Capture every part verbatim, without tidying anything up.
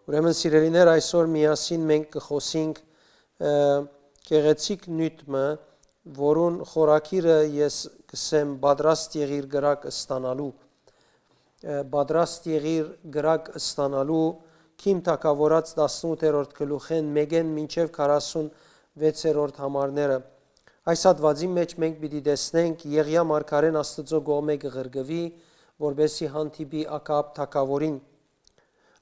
Ուրեմն, սիրելիներ, այսօր միասին մենք կը խօսինք, ը, գեղեցիկ նիւթ մը, որուն խորագիրը ես կ'ըսեմ «Պատրաստ եղիր կրակ ստանալու»։ Ը, «Պատրաստ եղիր կրակ ստանալու», Քիմ թագաւորաց տասնութերորդ գլուխէն մէկէն մինչեւ քառասունվեցերորդ համարները։ Այս հատուածին մէջ մենք պիտի տեսնենք Եղիա մարգարէն Աստուծոյ կողմէ կը ղրկուի, որպէսզի հանդիպի Ակաապ թագաւորին։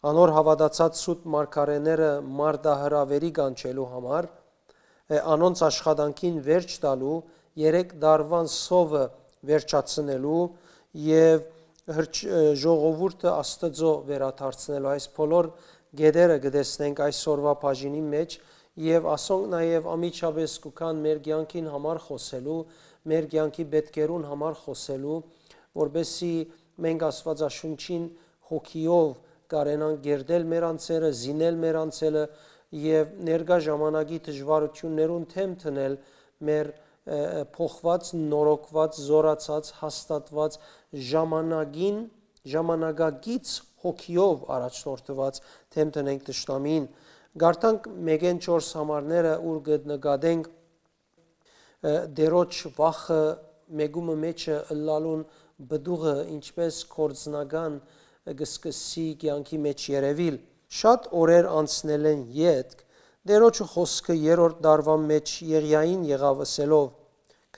Անոր հաւատացած սուտ մարգարէները մարտահրաւէրի կանչելու համար, ը, անոնց աշխատանքին վերջ տալու, երեք տարուան սովը վերջացնելու եւ հրճ-, ը, ժողովուրդը Աստուծոյ վերադարձնելու։ Այս բոլոր կետերը կը տեսնենք այսօրուայ բաժինին մէջ, եւ ասոնք նաեւ անմիջապէս կու գան մեր կեանքին համար խօսելու, մեր կեանքի պէտքերուն համար խօսելու, որպէսզի մենք Աստուածաշունչին հոգիով կարենանք կերտել մեր անձերը, զինել մեր անձերը եւ ներկայ ժամանակի դժուարութիւններուն դէմ դնել մեր, ը, ը, փոխուած, նորոգուած, զօրացած, հաստատուած ժամանակին, ժամանակակից հոգիով առաջնորդուած դէմ դնենք թշնամիին։ Կարդանք մէկէն չորս համարները, ուր կը նկատենք, ը, Տէրոջ վախը մէկումը մէջը ըլլալուն պտուղը ինչպէս գործնական կը սկսի կեանքի մէջ երեւիլ։ Շատ օրեր անցնելէն ետք, Տէրոջը խօսքը երրորդ տարուան մէջ Եղիային եղաւ, ըսելով.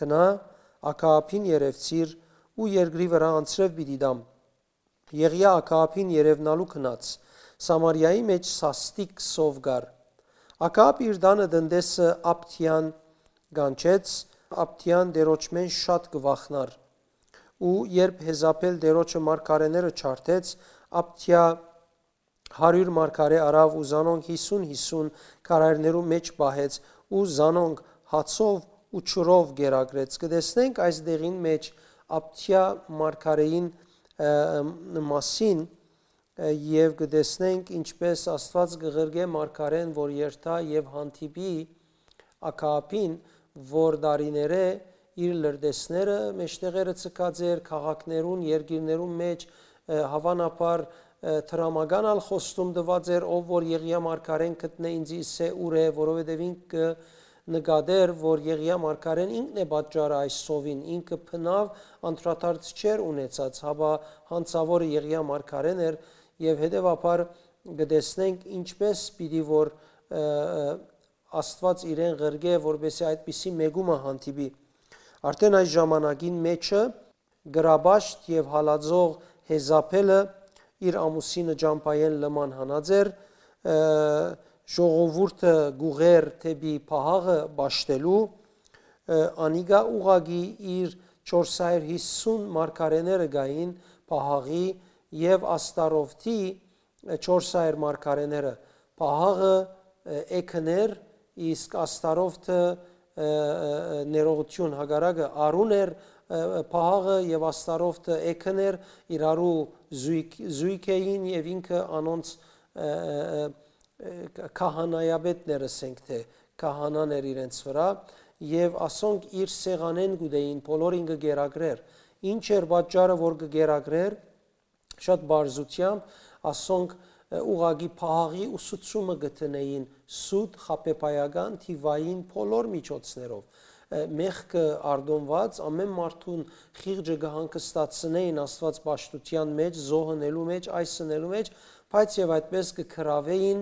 «Գնա, Ակաապին երեւցիր ու երկրի վրայ անձրեւ պիտի տամ»։ Եղիա Ակաապին երեւնալու գնաց։ Սամարիայի մէջ սաստիկ սով կար։ Ակաապ իր տանը տնտեսը Աբդիան կանչեց, Աբդիան Տէրոջմէն շատ կը վախնար։ Ու երբ Հեզապէլ Տէրոջը մարգարէները ջարդեց, Աբդիա հարիւր մարգարէ առաւ ու զանոնք յիսուն յիսուն քարայրներու մէջ պահեց ու զանոնք հացով ու ջուրով կերակրեց։ Կը տեսնենք այս դեղին մէջ Աբդիա մարգարէին, ը, մասին, ը, եւ կը տեսնենք ինչպէս Աստուած կը ղրկէ մարգարէն, որ երթայ եւ հանդիպի Ակաապին, որ տարիներէ իր լրտեսները մէջտեղերը ցկած էր քաղաքներուն, երկիրներուն մէջ, ը, հաւանաբար, ը, դրամական ալ խոստում տուած էր, ով որ Եղիա մարգարէն գտնէ, ինծի ըսէ ուր է, որովհետեւ ինք կը նկատէր, որ Եղիա մարգարէն ինքն է պատճառը այս սովին, ինքը բնաւ անդրադարձ չէր ունեցած, հապա հանցաւորը Եղիա մարգարէն էր, եւ հետեւաբար կը տեսնենք ինչպէս պիտի որ, ը, ը, Աստուած իրեն ղրկէ, որպէսզի այդպիսի մէկումը հանդիպի։ Արդէն այս ժամանակին մէջը գրաբաշտ եւ հալածող Հեզապէլը իր ամուսինը ճամբայէն լման հանած էր, ը, ժողովուրդը կ'ուղղէր դէպի պահաղը պաշտելու, ը, անիկա ուղղակի իր չորս հարիւր յիսուն մարգարէները կային պահաղի եւ Աստարովթի, ը, չորս հարիւր մարգարէները, պահաղը, ը, էգն էր, իսկ Աստարովթը, ը, ը, ը, ներողություն, հակառակը, արուն էր, ը, ը, պահաղը եւ Աստարովթը էգն էր, իրարու զոյգ, զոյգ էին եւ ինքը անոնց, ը, ը, ը, ը, քահանայապետն էր, ասենք թէ, քահանան էր իրենց վրայ, եւ ասոնք իր սեղանէն կ'ուտէին, բոլորին կը կերակրէր։ Ինչ էր պատճառը, որ կը կերակրէր, շատ պարզութեամբ ասոնք, ը, ուղղակի պահաղի ուսուցումը կը դնէին սուտ խաբեբայական թիվային բոլոր միջոցներով, ը, մեղքը արտոնուած, ամէն մարդուն խիղճը կը հանգստացնէին Աստուած պաշտութեան մէջ, զոհ ընելու մէջ, այս ընելու մէջ, բայց եւ այդպէս կը գրաւէին,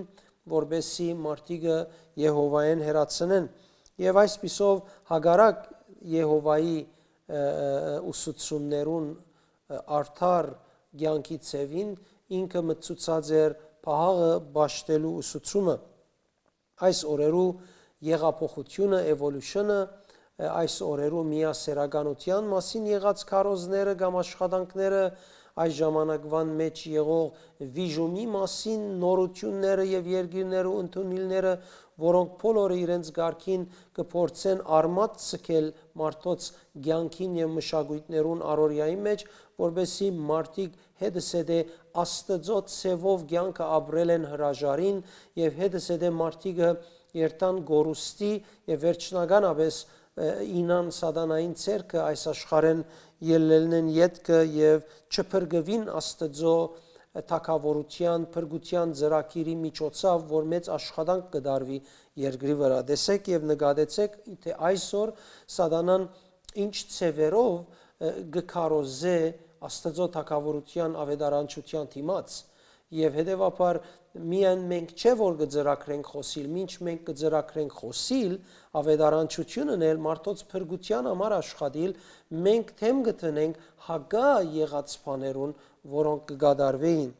որպէսզի մարդիկը Եհովայէն հեռացնեն։ Եւ այսպիսով հակառակ Եհովայի, ը, ը, ը, ուսուցումներուն, ը, արդար կեանքի ձեւին ինքը մտցուցած էր պահաղը պաշտելու ուսուցումը։ Այս օրերու եղափոխությունը, էվոլյուշնը, ը, այս օրերու միասեռականութեան մասին եղած քարոզները կամ աշխատանքները, այս ժամանակվան մէջ եղող վիժումի մասին նորութիւնները եւ երկիրներու ընդունիլները, որոնք բոլորը իրենց կարգին կը փորձեն արմատ ցկել մարդոց կեանքին եւ մշակոյթներուն առօրեային մէջ, որպէսզի մարդիկ հետզհետէ Աստուծոյ ձեւով կեանքը ապրելէն հրաժարին եւ հետզհետէ մարդիկը երթան կորուստի եւ վերջնականապէս, ը, իյնան սատանային ձեռքը այս աշխարհէն ելլելնեն ետքը եւ չփրկուին Աստուծոյ, թագաւորութեան, փրկութեան ծրագիրի միջոցաւ, որ մեծ աշխատանք կը դարուի երկրի վրայ։ Տեսէք եւ նկատեցէք, թէ այսօր Սատանան ինչ ձեւերով, ը, կը քարոզէ Աստուծոյ թագաւորութեան աւետարանչութեան դիմաց։ Եւ հետեւաբար միայն մենք չէ որ կը ծրագրենք խօսիլ, մինչ մենք կը ծրագրենք խօսիլ, աւետարանչութիւնն էլ մարդոց փրկութեան համար աշխատիլ, մենք դէմ կը դնենք հակա եղած բաներուն, որոնք կը կատարուէին։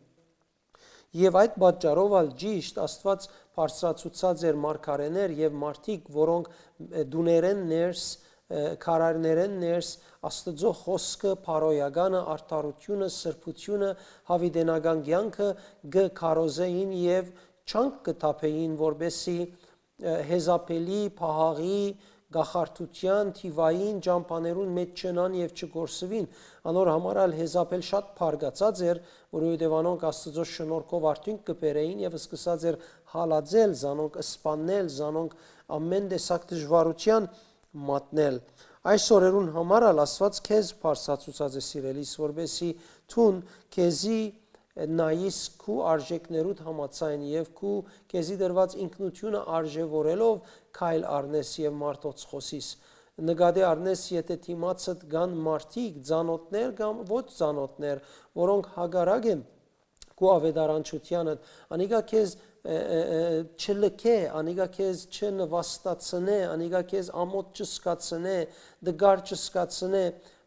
Եւ այդ պատճառով ալ ճիշդ Աստուած բարձրացուցած էր մարգարէներ եւ մարդիկ, որոնք, ը, տուներէն ներս, ը, քարայրներէն ներս Աստուծոյ խօսքը, բարոյականը, արդարութիւնը, սրբութիւնը, յաւիտենական կեանքը կը քարոզէին եւ չանք կը թափէին, որպէսզի, ը, հեզապելի, պահաղի, կախարդութեան, թիվային ճամբաներուն մէջ չընան եւ չկորսուին։ Անոր համար ալ Հեզապել շատ բարկացած էր, որովհետեւ անոնք Աստուծոյ շնորհքով արդիւնք կը բերէին եւ սկսած էր հալածել, զանոնք սպաննել, զանոնք ամէն տեսակ դժուարութեան մատնել։ Այս օրերուն համար ալ Աստուած քեզ բարձրացուցած է, սիրելիս, որպէսզի դուն քեզի նայիս քու արժեքներուդ համաձայն եւ քու քեզի տրուած ինքնութիւնը արժեւորելով քայլ առնես եւ մարդոց խօսիս։ Նկատի առնես, եթէ դիմացդ կան մարդիկ, ծանօթներ կամ ոչ ծանօթներ, որոնք հակառակ են քու աւետարանչութեանդ, անիկա քեզ, ը, ը, ը, չլքէ, անիկա քեզ չնուաստացնէ, անիկա քեզ ամօթ չզգացնէ, տկար չզգացնէ,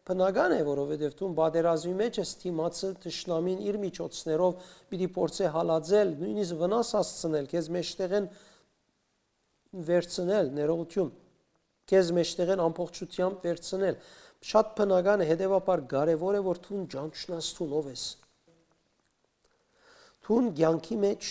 բնական է, որովհետեւ դուն պատերազմի մէջ ես, դիմացը, թշնամին իր միջոցներով պիտի փորձէ հալածել, նոյնիսկ վնաս հասցնել, քեզ մէջտեղէն վերցնել, ներողութիւն, քեզ մէջտեղէն ամբողջութեամբ վերցնել։ Շատ բնական է, հետեւաբար կարեւոր է, որ դուն ճանչնաս դուն ով ես։ Դուն կեանքի մէջ,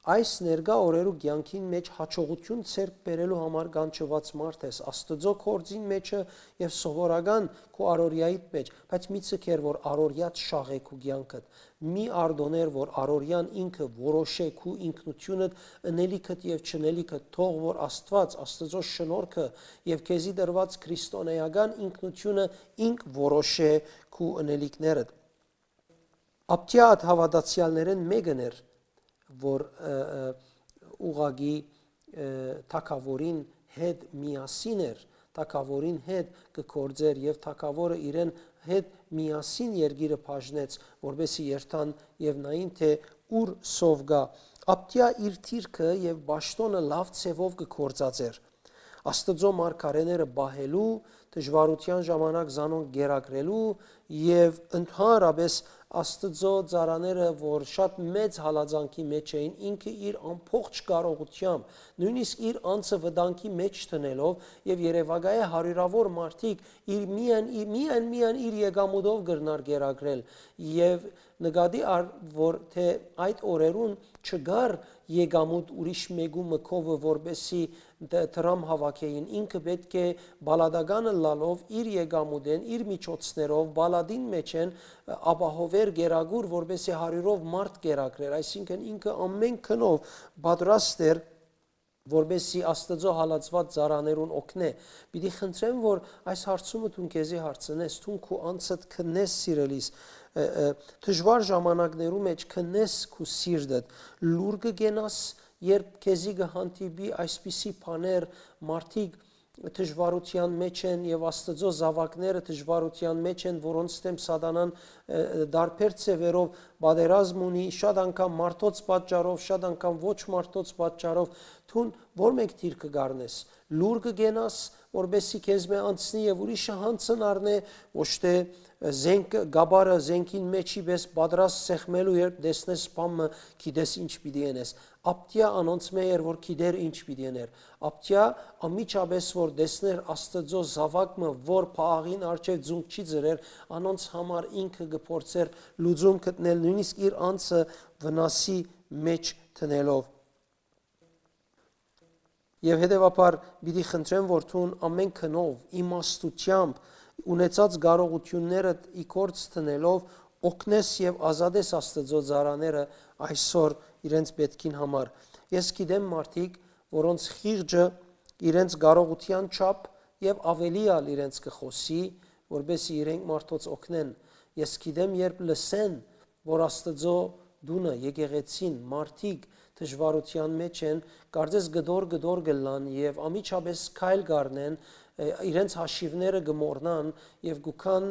այս ներկայ օրերու կեանքին մէջ յաջողութիւն ձեռք բերելու համար կանչուած մարդ ես, Աստուծոյ գործին մէջը եւ սովորական քու առօրեայիդ մէջ, բայց մի ձգեր, որ առօրեադ շաղէ քու կեանքդ, մի արտոնէր, որ առօրեան ինքը որոշէ քու ինքնութիւնդ, ընելիքդ եւ չընելիքդ, թող որ Աստուած, Աստուծոյ շնորհքը եւ քեզի տրուած քրիստոնէական ինքնութիւնը ինք որոշէ քու ընելիքներդ։ Աբդիա այդ հաւատացեալներէն մէկն էր, որ, ը, ը, ուղղակի, ը, թագաւորին հետ միասին էր, թագաւորին հետ կը գործէր եւ թագաւորը իրեն հետ միասին երկիրը բաժնեց, որպեսզի երթան եւ նային, թէ ուր սով կայ։ Աբդիա իր դիրքը եւ պաշտօնը լաւ ձեւով կը գործածէր։ Աստուծոյ մարգարէները պահելու, դժուարութեան ժամանակ զանոնք կերակրելու եւ ընդհանրապէս Աստուծոյ ծառաները, որ շատ մեծ հալածանքի մէջ էին, ինքը իր ամբողջ կարողութեամբ, նոյնիսկ իր անձը վտանգի մէջ դնելով եւ երեւակայէ հարիւրաւոր մարդիկ իր միայն, իր, միայն, միայն իր եկամուտով կրնար կերակրել եւ նկատի առ, որ թէ այդ օրերուն չկար եկամուտ ուրիշ մեկու մկովը, որպեսզի դ-, դրամ հաւաքէին, ինքը պէտք է պալատական ըլլալով իր եկամուտէն, իր միջոցներով պալատին մէջէն, ը, ապահովէր գերագուր, որպեսզի հարիւրով մարդ կերակրեր, այսինքն ինքը ամէն գնով պատրաստ էր, որպեսզի Աստուծոյ հալածուած ծառաներուն օգնէ։ Պիտի խնդրեմ, որ այս հարցումը դուն քեզի հարցնես, դուն քու անձդ քննես, սիրելիս, ը, ը, դժուար ժամանակներու մէջ քննես քու սիրտդ, լուր կը կենաս, երբ քեզի կը հանդիպի այսպիսի բաներ, մարդիկ դժուարութեան մէջ են եւ Աստուծոյ զաւակները դժուարութեան մէջ են, որոնց դէմ Սատանան, ը, ը, տարբեր ձեւերով պատերազմ ունի, շատ անգամ մարդոց պատճառով, շատ անգամ ոչ մարդոց պատճառով, դուն ո՞ր մէկ դիրքը կ'առնես, լուր կը կենաս, որպեսզի քեզմէ անցնի եւ ուրիշը յանցն առնէ, ոչ թէ, ը, զենք, կապարը զենքին մէջի պէս պատրաստ սեղմելու, երբ տեսնես բան մը, գիտես ինչ պիտի ընես։ Աբդիա անոնցմէ էր, որ գիտեր ինչ պիտի ըներ։ Աբդիա անմիջապէս որ տեսներ Աստուծոյ զաւակ մը, որ պահաղին առջեւ ձունկ չի ծռեր, անոնց համար ինքը կը փորձէր լուծում գտնել, նոյնիսկ իր անձը վնասի մէջ դնելով։ Եւ հետեւաբար պիտի խնդրեմ, որ դուն ամէն գնով, իմաստութեամբ, ունեցած կարողութիւններդ ի գործ դնելով, օգնես եւ ազատես Աստուծոյ ծառաները այսօր իրենց պէտքին համար։ Ես գիտեմ մարդիկ, որոնց խիղճը իրենց կարողութեան չափ եւ աւելի ալ իրենց կը խօսի, որպեսզի իրենք մարդոց օգնեն։ Ես գիտեմ, երբ լսեն, որ Աստուծոյ տունը, եկեղեցին, մարդիկ դժուարութեան մէջ են, կարծես կտոր-կտոր կ'ըլլան եւ անմիջապէս քայլ կ'առնեն, իրենց հաշիւները կը մոռնան եւ կու գան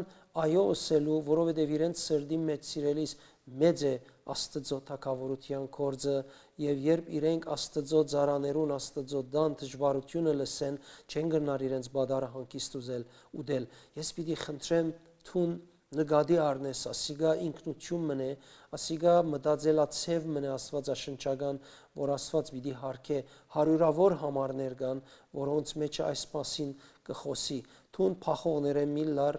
այո ըսելու, որովհետեւ իրենց սրտին մէջ, սիրելիս, մեծ է Աստուծոյ թագաւորութեան գործը, եւ երբ իրենք Աստուծոյ ծառաներուն, Աստուծոյ տան դժուարութիւնը լսեն, չեն կրնար իրենց պատառը հանգիստ ուզել, ուտել։ Ես պիտի խնդրեմ, դուն նկատի առնես, ասիկա ինքնութիւն մըն է, ասիկա մտածելացեւ մըն է աստուածաշնչական, որ Աստուած պիտի յարգէ, հարիւրաւոր համարներ կան, որոնց մէջ այս մասին կը խօսի։ Դուն փախողներէն մի լար,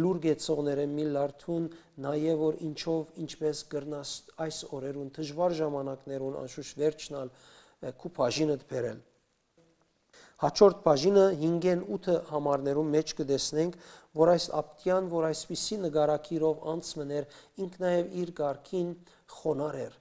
լուր գեցողներէն մի լար, դուն նայէ, որ ինչով, ինչպես կրնաս այս օրերուն, դժուար ժամանակներուն, անշուշտ վերջնալ, քու բաժինդ բերել։ Հաջորդ բաժինը հինգէն ութը համարներուն մէջ կը տեսնենք, որ այս Աբտիան, որ այսպիսի նկարագիրով անցմն էր, ինք նաեւ իր կարգին խոնար էր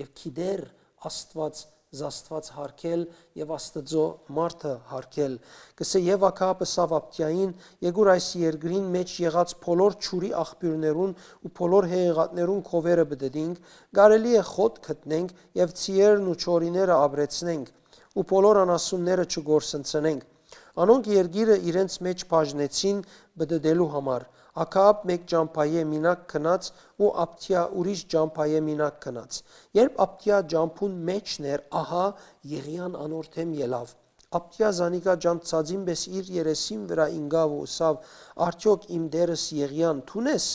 եւ գիտեր Աստուած զաստուած յարգել եւ Աստուծոյ մարդը յարգել։ Կսէ, եւ Աքաբ ըսաւ Աբտիային. «Եկուր այս երկրին մէջ եղած բոլոր ջուրի աղբիւրներուն ու բոլոր հեղեղատներուն քովերը պտը դինք, կարելի է խոտ գտնենք եւ ցիերն ու չորիները ապրեցնենք ու բոլոր անասունները չկորսնցնենք»։ Անոնք երկիրը իրենց մէջ բաժնեցին պտտելու համար։ Աքաապ մէկ ճամբայէ մինակ գնաց ու Աբթիա ուրիշ ճամբայէ մինակ գնաց։ Երբ Աբթիա ճամբուն մէջն էր, ահա Եղիան անոր դէմ ելաւ։ Աբթիա զանիկա ճանչցածին պէս իր երեսին վրայ ինկաւ ու ըսաւ. «Արդեօք իմ տէրս Եղիան դո՞ւն ես»։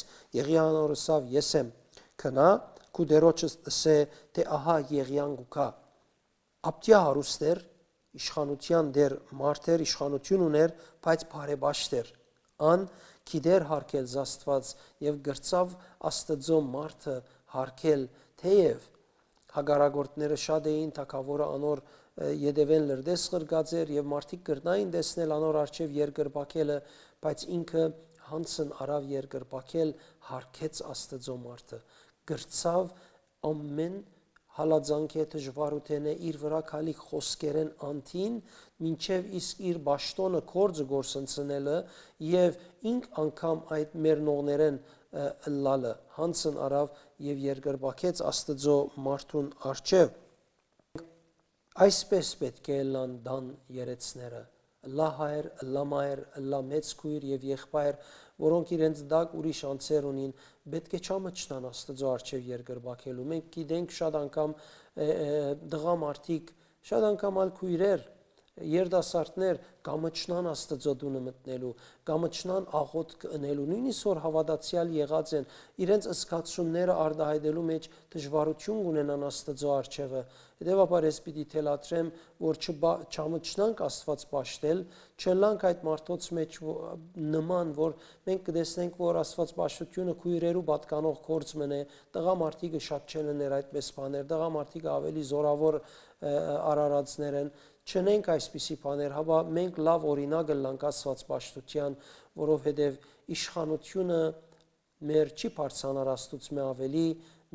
Եղիան անոր ըսաւ. «Ես եմ»։ «Գնա, քու տիրոջս ըսէ թէ ահա Եղիան կու գայ»։ Աբթիա հարուստ էր, իշխանութեան տէր մարդ էր, իշխանութիւն ունէր, բայց բարեպաշտ էր։ Ան գիտեր յարգել զաստուած եւ կրցաւ Աստուծոյ մարդը յարգել, թէեւ հակառակորդները շատ էին, թագաւորը անոր ետեւէն լրտես ղրկած էր եւ մարդիկ կրնային տեսնել անոր առջեւ երկրպագելը, բայց ինքը յանցն առաւ երկրպագել, յարգեց Աստուծոյ մարդը, կրցաւ ամէն հալածանքէ, դժուարութենէ, իր վրայ գալիք խօսքերէն անդին, մինչեւ իսկ իր պաշտօնը, գործը կորսնցնելը եւ ինք անգամ այդ մեռնողներէն ըլլալը, յանցն առաւ եւ երկրպագեց Աստուծոյ մարդուն առջեւ։ Այսպէս պէտք է ըլլան տան երեցները, ըլլայ հայր, ըլլայ մայր, ըլլայ մեծ քոյր եւ եղբայր, որոնք իրենց տակ ուրիշ անձեր ունին, պէտք է չամչնան Աստուծոյ առջեւ երկրպագելու։ Մենք գիտենք շատ անգամ տղամարդիկ, շատ անգամ ալ քոյրեր, երիտասարդներ կամչնան Աստուծոյ տունը մտնելու, կամչնան աղօթք ընելու, նոյնիսկ որ հաւատացեալ եղած են, իրենց զգացումները արտայայտելու մէջ դժուարութիւն կ'ունենան Աստուծոյ առջեւը։ Հետեւաբար ես պիտի թելադրեմ, որ չբա-, չամչնանք Աստուած պաշտել, չըլլանք այդ մարդոց մէջ, նման, որ մենք կը տեսնենք, որ Աստուած պաշտութիւնը քոյրերու պատկանող գործ մըն է, տղամարդիկը շատ չեն ըներ այդպէս բաներ, տղամարդիկը աւելի զօրաւոր արարածներ են, չընենք այսպիսի բաներ, հապա մենք լաւ օրինակ ըլլանք Աստուած պաշտութեան, որովհետեւ իշխանութիւնը մեր չի բարձրանար Աստուծմէ աւելի,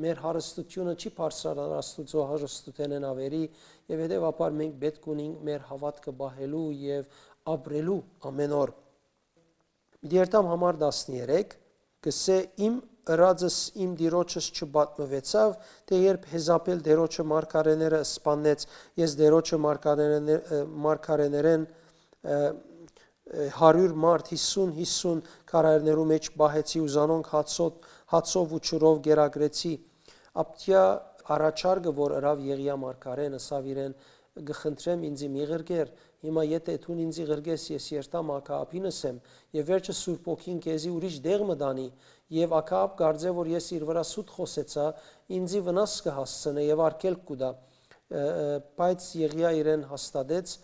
մեր հարստութիւնը չի բարձրանար Աստուծոյ հարստութենէն աւելի, եւ հետեւաբար մենք պէտք ունենք մեր հաւատքը պահելու եւ ապրելու ամէն օր։ Պիտի երթամ համար տասներեք, կսէ. «Իմ ըրածս իմ տիրոջս չպատմուեցաւ, թէ երբ Յեզապէլ Տիրոջը մարգարէները սպաննեց, ես Տիրոջը մարգարէներէ-, մարգարէներէն, ը, ը, հարիւր մարդ, յիսուն, յիսուն քարայրներու մէջ պահեցի ու զանոնք հացոտ-, հացով ու ջուրով կերակրեցի»։ Աբթիա առաջարկը, որ ըրաւ Եղիա մարգարէն, ըսաւ իրեն. «Կը խնդրեմ, ինծի մի ղրկեր, հիմա եթէ դուն ինծի ղրկես, ես երթամ Աքաաբին ըսեմ, եւ վերջը Սուրբ Հոգին քեզի ուրիշ տեղ մը տանի, եւ Աքաաբ կարծէ, որ ես իր վրայ սուտ խօսեցայ, ինծի վնաս կը հասցնէ եւ արգելք կու տայ»։ Ը, ը, բայց Եղիա իրեն հաստատեց,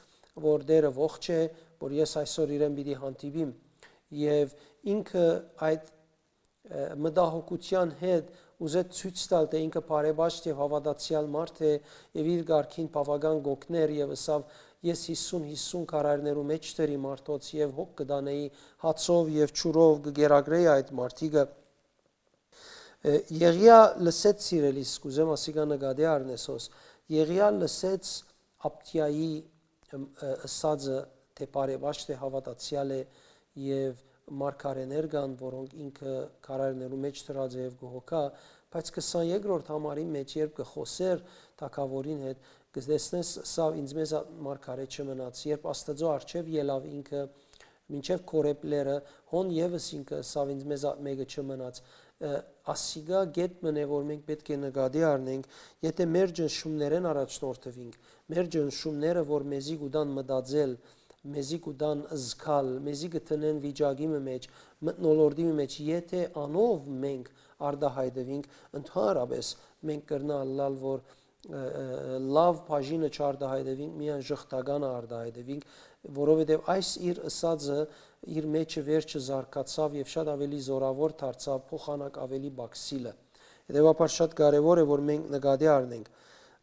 որ Տէրը ողջ է, որ ես այսօր իրեն պիտի հանդիպիմ։ Եւ ինքը այդ, ը, մտահոգութեան հետ ուզեց ցոյց տալ, թէ ինքը բարեպաշտ եւ հաւատացեալ մարդ է եւ իր կարգին բաւական կ'օգներ, եւ ըսաւ. «Ես յիսուն, յիսուն քարայրներու մէջ դրի մարդոց եւ հոգ կը տանէի, հացով եւ ջուրով կը կերակրէի այդ մարդիկը»։ Ը, Եղիա լսեց, սիրելիս, կ'ուզեմ ասիկա նկատի առնես հոս, Եղիա լսեց Աբթիայի, ըմ, ը, ըսածը, թէ բարեպաշտ է, հաւատացեալ է, եւ մարգարէներ կան, որոնք ինքը քարայրներու մէջ դրած է եւ կը հոգայ, Բայց քսանեքրորդ համարին մէջ, երբ կը խօսէր թագաւորին հետ, կը տեսնես, սա ինձ մեզ մարգարէ չմնաց, երբ Աստուծոյ առջեւ ելաւ ինքը, մինչեւ Քորեբ լեռը, հոն եւս ինքը սա ինձ մեզ մէկը չմնաց։ Ը, ասիկա գետ մն է, որ մենք պէտք է նկատի առնենք, եթէ մեր ճնշումներէն առաջնորդուինք, մեր ճնշումները, որ մեզի կու տան մտածել, մեզի կու տան զգալ, մեզի կը տնեն վիճակի մը մէջ, մթնոլորտի մը մէջ, եթէ անով մենք արտահայտուինք, ընդհանրապես մենք կրնա ըլլալ, որ, ը, ը, լաւ բաժինը չարտահայտուինք, միայն ժխտականը արտահայտուինք, որովհետեւ այս իր ըսածը իր մեջը վերջը զարգացաւ եւ շատ աւելի զօրաւոր դարձաւ, փոխանակ աւելի պակսիլը։ Հետեւաբար շատ կարեւոր է, որ մենք նկատի առնենք։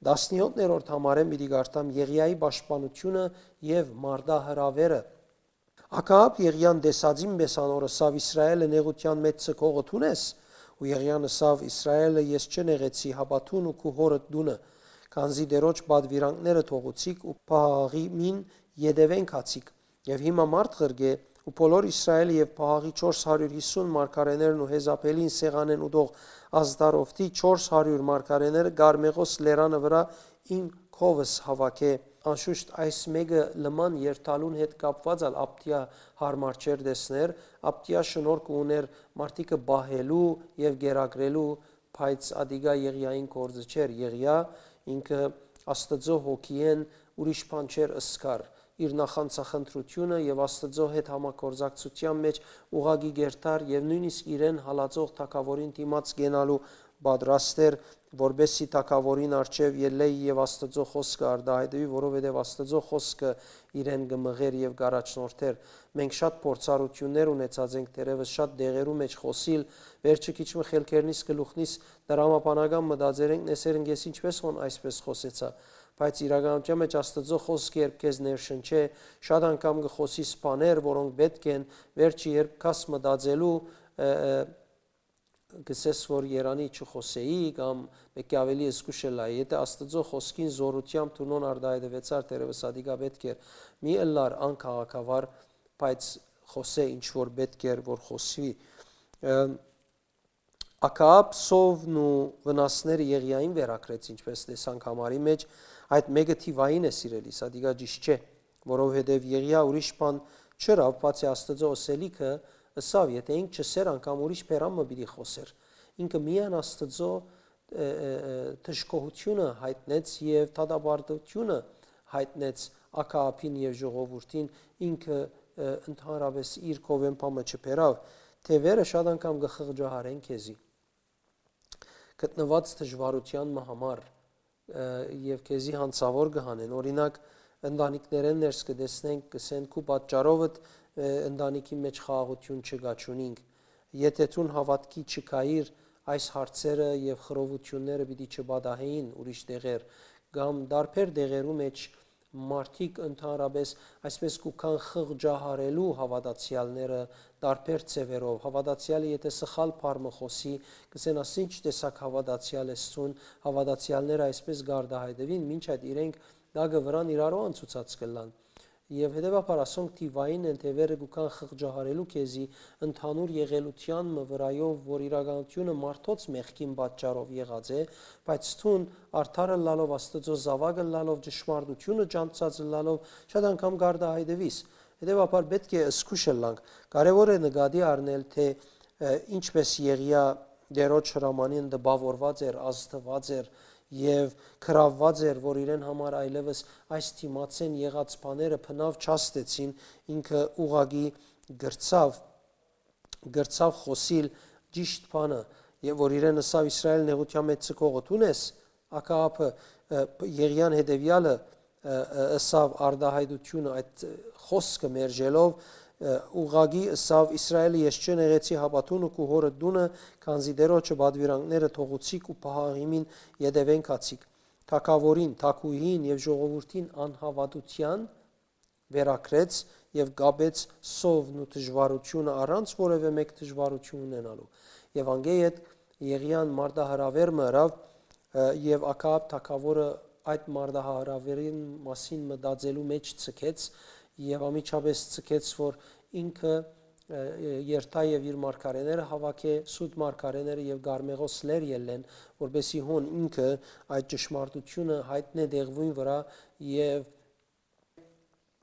Տասնեօթերորդ համարէն պիտի կարդամ Եղիայի պաշտպանությունը եւ մարտահրաւերը։ Աքաապ Եղիան տեսածին պէս անոր ըսաւ. «Իսրայէլը նեղութեան մէջ ձգողը դո՞ւն ես»։ Ու Եղիան ըսաւ. «Իսրայէլը ես չնեղեցի, հապա դուն ու քու հօրդ տունը, քանզի Տէրոջ պատուիրանքները թողուցիք ու Պահաղիմին ետեւէն գացիք»։ Եւ հիմա մարդ ղրկէ ու բոլոր Իսրայէլը եւ Պահաղի չորս հարիւր յիսուն մարգարէներն ու Յեզապէլին սեղանէն ուտող Ազդարովթի չորս հարիւր մարգարէները Կարմեղոս լերանը վրայ իմ քովս հաւաքէ։ Անշուշտ այս մէկը լման երթալուն հետ կապուած ալ Աբդիա յարմար չէր տեսներ, Աբդիա շնորհք ունէր մարդիկը պահելու եւ կերակրելու, բայց ատիկա Եղիային գործը չէր։ Եղիա ինքը Աստուծոյ հոգիէն ուրիշ բան չէր ըսկար։ Իր նախանձախնդրութիւնը եւ Աստուծոյ հետ համագործակցութեան մէջ ուղղակի կերտար եւ նոյնիսկ իրեն հալածող թագաւորին դիմաց կենալու պատրաստ էր, որպէսզի թագաւորին առջեւ ելլէ եւ Աստուծոյ խօսքը արտահայտուի, որովհետեւ Աստուծոյ խօսքը իրեն կը մղէր եւ կ'առաջնորդէր։ Մենք շատ փորձառութիւններ ունեցած ենք թերեւս շատ դեղերու մէջ խօսիլ, վերջը քիչ մը խելքերնիս կը լուխնիս, դրամաբանական մտածեր ենք, նեսեր ընկես ինչպէս հոն այսպէս խօսեցայ, բայց իրականութեան մէջ Աստուծոյ խօսքը երբ քեզ ներշնչէ, շատ անգամ կը խօսիս բաներ, որոնք պէտք են, վերջը երբ գաս մտածելու, ը, ը, կ'ըսես, որ երանի չխօսէի կամ մէկի աւելի զգուշ ըլլայ։ Եթէ Աստուծոյ խօսքին զօրութեամբ դուն արտահայտուեցար, թերեւս ատիկա պէտք էր, մի ըլլար անքաղաքավար, բայց խօսէ ինչ որ պէտք էր որ խօսուի։ Ը, Աքաապ սովն ու վնասները Եղիային վերագրեց, ինչպէս տեսանք համարի մէջ, այդ մէկը թիվային է, սիրելի, սա դիգա ճիշտ չէ, որովհետեւ Եղիա ուրիշ բան չըրաւ, բացի Աստուծոյ ըսելիքը, ըսաւ, եթէ ինք չըսէր, անգամ ուրիշ բերան մը պիտի խօսէր։ Ինքը միայն Աստուծոյ, ը, ը, ը, դժգոհութիւնը յայտնեց եւ դատապարտութիւնը յայտնեց Աքաապին եւ ժողովուրդին, ինքը, ը, ընդհանրապես իր կովեն բան մը չբերաւ, թեւերը շատ անգամ կը խղճահարեն քեզի։ Գտնուած դժուարութեան մը համար, ը, եւ քեզի յանցաւոր կը հանեն։ Օրինակ, ընտանիքներէն ներս կը տեսնենք, կ'ըսեն, քու պատճառովդ, ը, ընտանիքի մէջ խաղաղութիւն չկայ, չունինք։ Եթէ դուն հաւատքի չկայիր, այս հարցերը եւ խռովութիւնները պիտի չպատահէին ուրիշ տեղեր, կամ տարբեր տեղերու մէջ մարդիկ ընդհանրապես այսպես կու գան խղճահարելու հաւատացեալները տարբեր ձեւերով։ Հաւատացեալը եթէ սխալ բառ մը խօսի, կ'ըսեն, «Ասի ինչ տեսակ հաւատացեալ ես դուն», հաւատացեալները այսպես կարտահայտուին, մինչ այդ իրենք տակը վրան իրարու անցուցած կ'ըլլան։ Եւ հետեւաբար ասոնք թիվային են, թեւերը կու գան խղճահարելու քեզի ընդհանուր եղելութեան մը վրայով, որ իրականութիւնը մարդոց մեղքին պատճառով եղած է, բայց դուն արդար ըլլալով, Աստուծոյ զաւակ ըլլալով, ճշմարտութիւնը ճանչցած ըլլալով, շատ անգամ կարտահայտուիս։ Հետեւաբար պէտք է զգուշ ըլլանք։ Կարեւոր է նկատի առնել, թէ, ը, ինչպէս Եղիա Տէրոջ հրամանին տպաւորուած էր, ազդուած էր եւ գրաւուած էր, որ իրեն համար այլեւս այս դիմացէն եղած բաները բնաւ չաստեցին, ինքը ուղղակի գրցաւ, գրցաւ խօսիլ ճիշդ բանը, եւ որ իրեն ըսաւ. «Իսրայէլ նեղութեան մէջ ձգողը դո՞ւն ես»։ Աքաապը, ը, Եղիան հետեւեալը, ը, ը, ըսաւ արտահայտությունը, այդ, ը, խօսքը մերժելով, ը, ուղղակի ըսաւ. «Իսրայէլը ես չնեղեցի, հապա դուն ու քու հօրդ տունը, քանզի Տէրոջը պատուիրանքները թողուցիք ու Պահաղիմին ետեւէն գացիք»։ Թագաւորին, թագուհին եւ ժողովուրդին անհաւատութեան վերագրեց եւ կապեց սովն ու դժուարութիւնը առանց որեւէ մէկ դժուարութիւն ունենալու։ Եւ անկէ յետ Եղիան մարտահրաւեր մը ըրաւ, ը, եւ Աքաապ թագաւորը այդ մարտահրաւերին մասին մտածելու մէջ ձգեց եւ անմիջապես ձգեց, որ ինքը երթայ եւ իր մարգարեները հաւաքէ, սուտ մարգարեները եւ գարմեղոս լեր ելլեն, որպէսզի հոն ինքը այդ ճշմարտութիւնը յայտնէ դեղուին վրայ եւ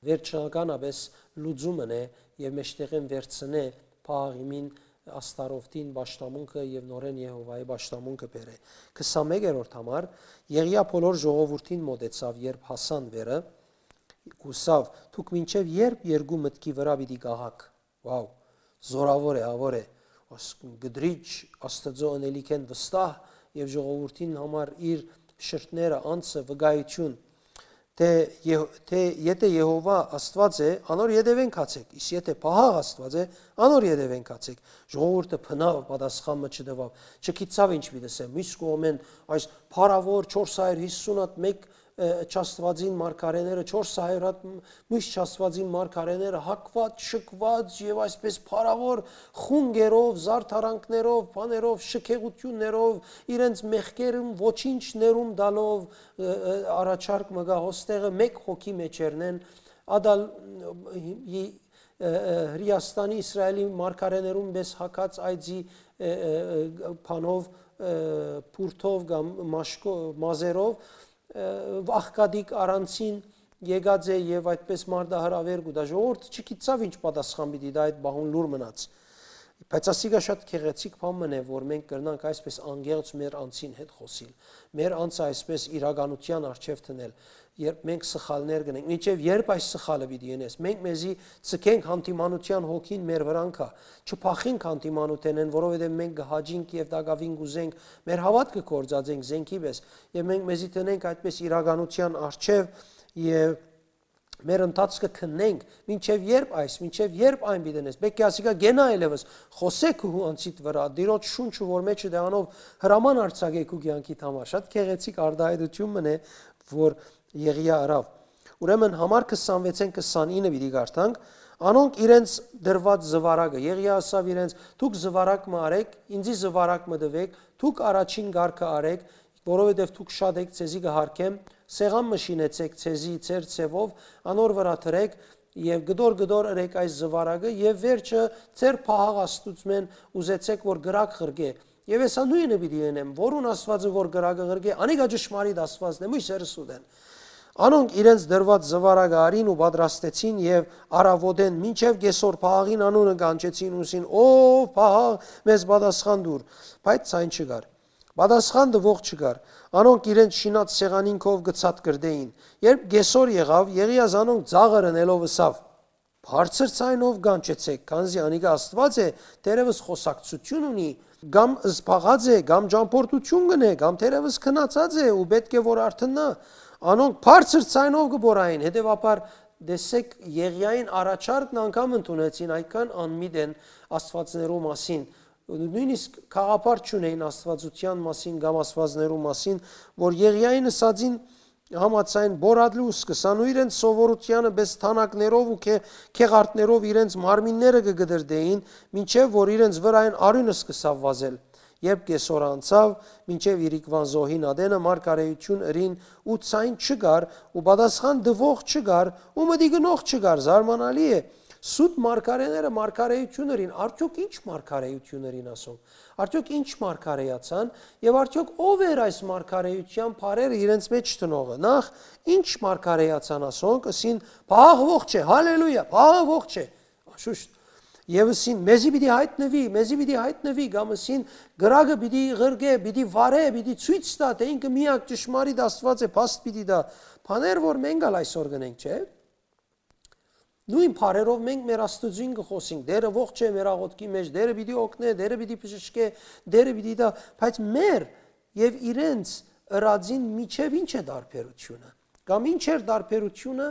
վերջնականապէս լուծում ընէ եւ մէջտեղէն վերցնէ փաղ իմին, աստարովտին պաշտամունքը եւ նորէն Եհովայի պաշտամունքը բերէ։ Քսանմեկերորդ համար, Եղիա բոլոր ժողովուրդին մօտեցաւ, երբ հասան վերը, ուսաւ. «Դուք մինչեւ ե՞րբ երկու մտքի վրայ պիտի կաղաք»։ Վաու, զորաւոր է, ավոր է։ Աս-, կդրիչ Աստծո ընելիքէն վստահ եւ ժողովուրդին համար իր շրթները, անձը, վկայություն, թէ Եհ-, թէ եթէ Եհովա Աստուած է, անոր ետեւէն գացէք, իսկ եթէ Պահաղ Աստուած է, անոր ետեւէն գացէք։ Ժողովուրդը բնաւ պատասխան մը չտուաւ, չգիտցաւ ինչ պիտի ասեմ։ Մյուս կողմէն, այս փառաւոր չորս հարիւր յիսուն հատ մէկ, ը, չաստուածին մարգարեները, չորս հարիւր հատ մ-, մյուս չաստուածին մարգարեները հակված, շկված եւ այսպես փառաւոր խունկերով, զարդարանքներով, բաներով, շքեղութիւններով, իրենց մեղքերուն ոչինչ ներում տալով, ը, ը, առաջարկ մը գայ, հոստեղը մէկ հոգի մէջերնեն, ադալ, ը, ը, Հրեաստանի Իսրայելի մարգարեներուն պէս հակած այծի, ը, ը, ը, բանով, ը, բուրդով կամ մաշկո-, մազերով, ը, աղքատիկ առանցին եկած է եւ այդպես մարտահրաւեր կու տայ։ Ժողովուրդը չգիտցաւ ինչ պատասխան պիտի տայ այդ բահուն լուր մնաց։ Բայց ասիկա շատ գեղեցիկ բան մըն է, որ մենք կրնանք այսպես անկեղծ մեր անձին հետ խօսիլ, մեր անձը այսպես իրականութեան առջեւ դնել, երբ մենք սխալներ կ'ընենք, մինչեւ երբ այս սխալը պիտի ընես, մենք մեզի ձգենք, հանդիմանութեան հոգին մեր վրան գայ, չփախինք հանդիմանութենէն, որովհետեւ մենք կը հաճինք եւ տակաւին կ'ուզենք, մեր հաւատքը գործածենք զենքի պէս, եւ մենք մեզի դնենք այդպես իրականութեան առջեւ եւ մեր ընթացքը քննենք, մինչեւ երբ այս, մինչեւ երբ այն պիտի ընես, պէտք է ասիկա կենայ այլեւս, խօսէ քու անձիդ վրայ, Տիրոջ շունչը որ մէջը դեանով հրաման արձակէ քու կեանքիդ համար, շատ գեղեցիկ արտայայտութիւն մըն է, որ Եղիա ըրաւ։ Ուրեմն համար քսանվեցէն քսանինը պիտի կարդանք, անոնք իրենց դրուած զուարակը, Եղիա ասաւ իրենց, «Դուք զուարակ մը արեք, ինձի զուարակ մը տուէք, դուք առաջին կարգը արեք, որովհետեւ դուք շատ էք, ձեզի կը յարգեմ, սեղան մը շինեցէք ձեզի ձեր ձեւով, անոր վրայ դրէք եւ կտոր-կտոր ըրեք այս զուարակը եւ վերջը ձեր Պահաղ Աստուծմէն ուզեցէք որ կրակ ղրկէ։ Եւ ես ա նոյնը պիտի ընեմ, որուն Աստուածը որ կրակը ղրկէ, անիկա ճշմարիտ Աստուածն է, մոյսերս ուտեն»։ Անոնք իրենց դրուած զուարակը արին ու պատրաստեցին եւ առաւօտէն մինչեւ կեսօր Պահաղին անունը կանչեցին ու ըսին. «Ով Պահաղ, մեզ պատասխան տուր»։ Բայց ցայն չկար։ Պատասխան տուող չկար։ Անոնք իրենց շինած սեղանին քով կը ցատկրտէին։ Երբ կեսօր եղաւ, Եղիա զանոնք ծաղր ընելով ըսաւ. «Բարձր ցայնով կանչեցէք, քանզի անիկա Աստուած է, թերեւս խօսակցութիւն ունի, կամ զբաղած է, կամ ճամբորդութիւն կ'ընէ, կամ թերեւս քնացած է ու պէտք է որ արթննայ»։ Անոնք բարձր ցայնով կը բորային, հետեւաբար տեսեք, Եղիային առաջարկն անգամ ընդունեցին, այդքան անմիտ են աստուածներու մասին, նոյնիսկ գաղափար չունէին աստուածութեան մասին կամ աստուածներու մասին, որ Եղիային ըսածին համաձայն, բորատլուս կը սան ու իրենց սովորութեանը պէս թանաքներով ու քե-, քեղարտներով իրենց մարմինները կը կդրդէին, մինչեւ որ իրենց վրայէն արիւնը սկսաւ վազել։ Երբ կեսօր անցաւ, մինչեւ իրիկվան զոհին ատենը մարգարեութիւն ըրին ու ցայն չկար ու պատասխան տուող չկար ու մտի գնող չկար, զարմանալի է։ Սուտ մարգարեները մարգարեութիւն ըրին, արդյոք ի՞նչ մարգարեութիւն ըրին ասոնք։ Արդյոք ի՞նչ մարգարեացան եւ արդյոք ո՞վ էր այս մարգարեութեան բառերը իրենց մէջ տնողը։ Նախ, ի՞նչ մարգարեացան ասոնք, ըսին. «Պահաղ ողջ է, հալելույա, Պահաղ ողջ է»։ Շուշտ։ Եվ ըսին. «Մեզի պիտի յայտնուի, մեզի պիտի յայտնուի», կամ ըսին. «Կրակը պիտի ղրկէ, պիտի վարէ, պիտի ցոյց տայ, թէ ինքը միակ ճշմարիտ Աստուած է, փաստ պիտի տայ»։ Բաներ որ մենք ալ այսօր կ'ընենք, չէ՞։ Նոյն բառերով մենք մեր Աստուծոյն կը խօսենք. «Տէրը ողջ է մեր աղօթքի մէջ, Տէրը պիտի օգնէ, Տէրը պիտի բժշկէ, Տէրը պիտի տայ», բայց մեր եւ իրենց ըրածին միջեւ ի՞նչ է տարբերությունը։ Կամ ի՞նչ էր տարբերությունը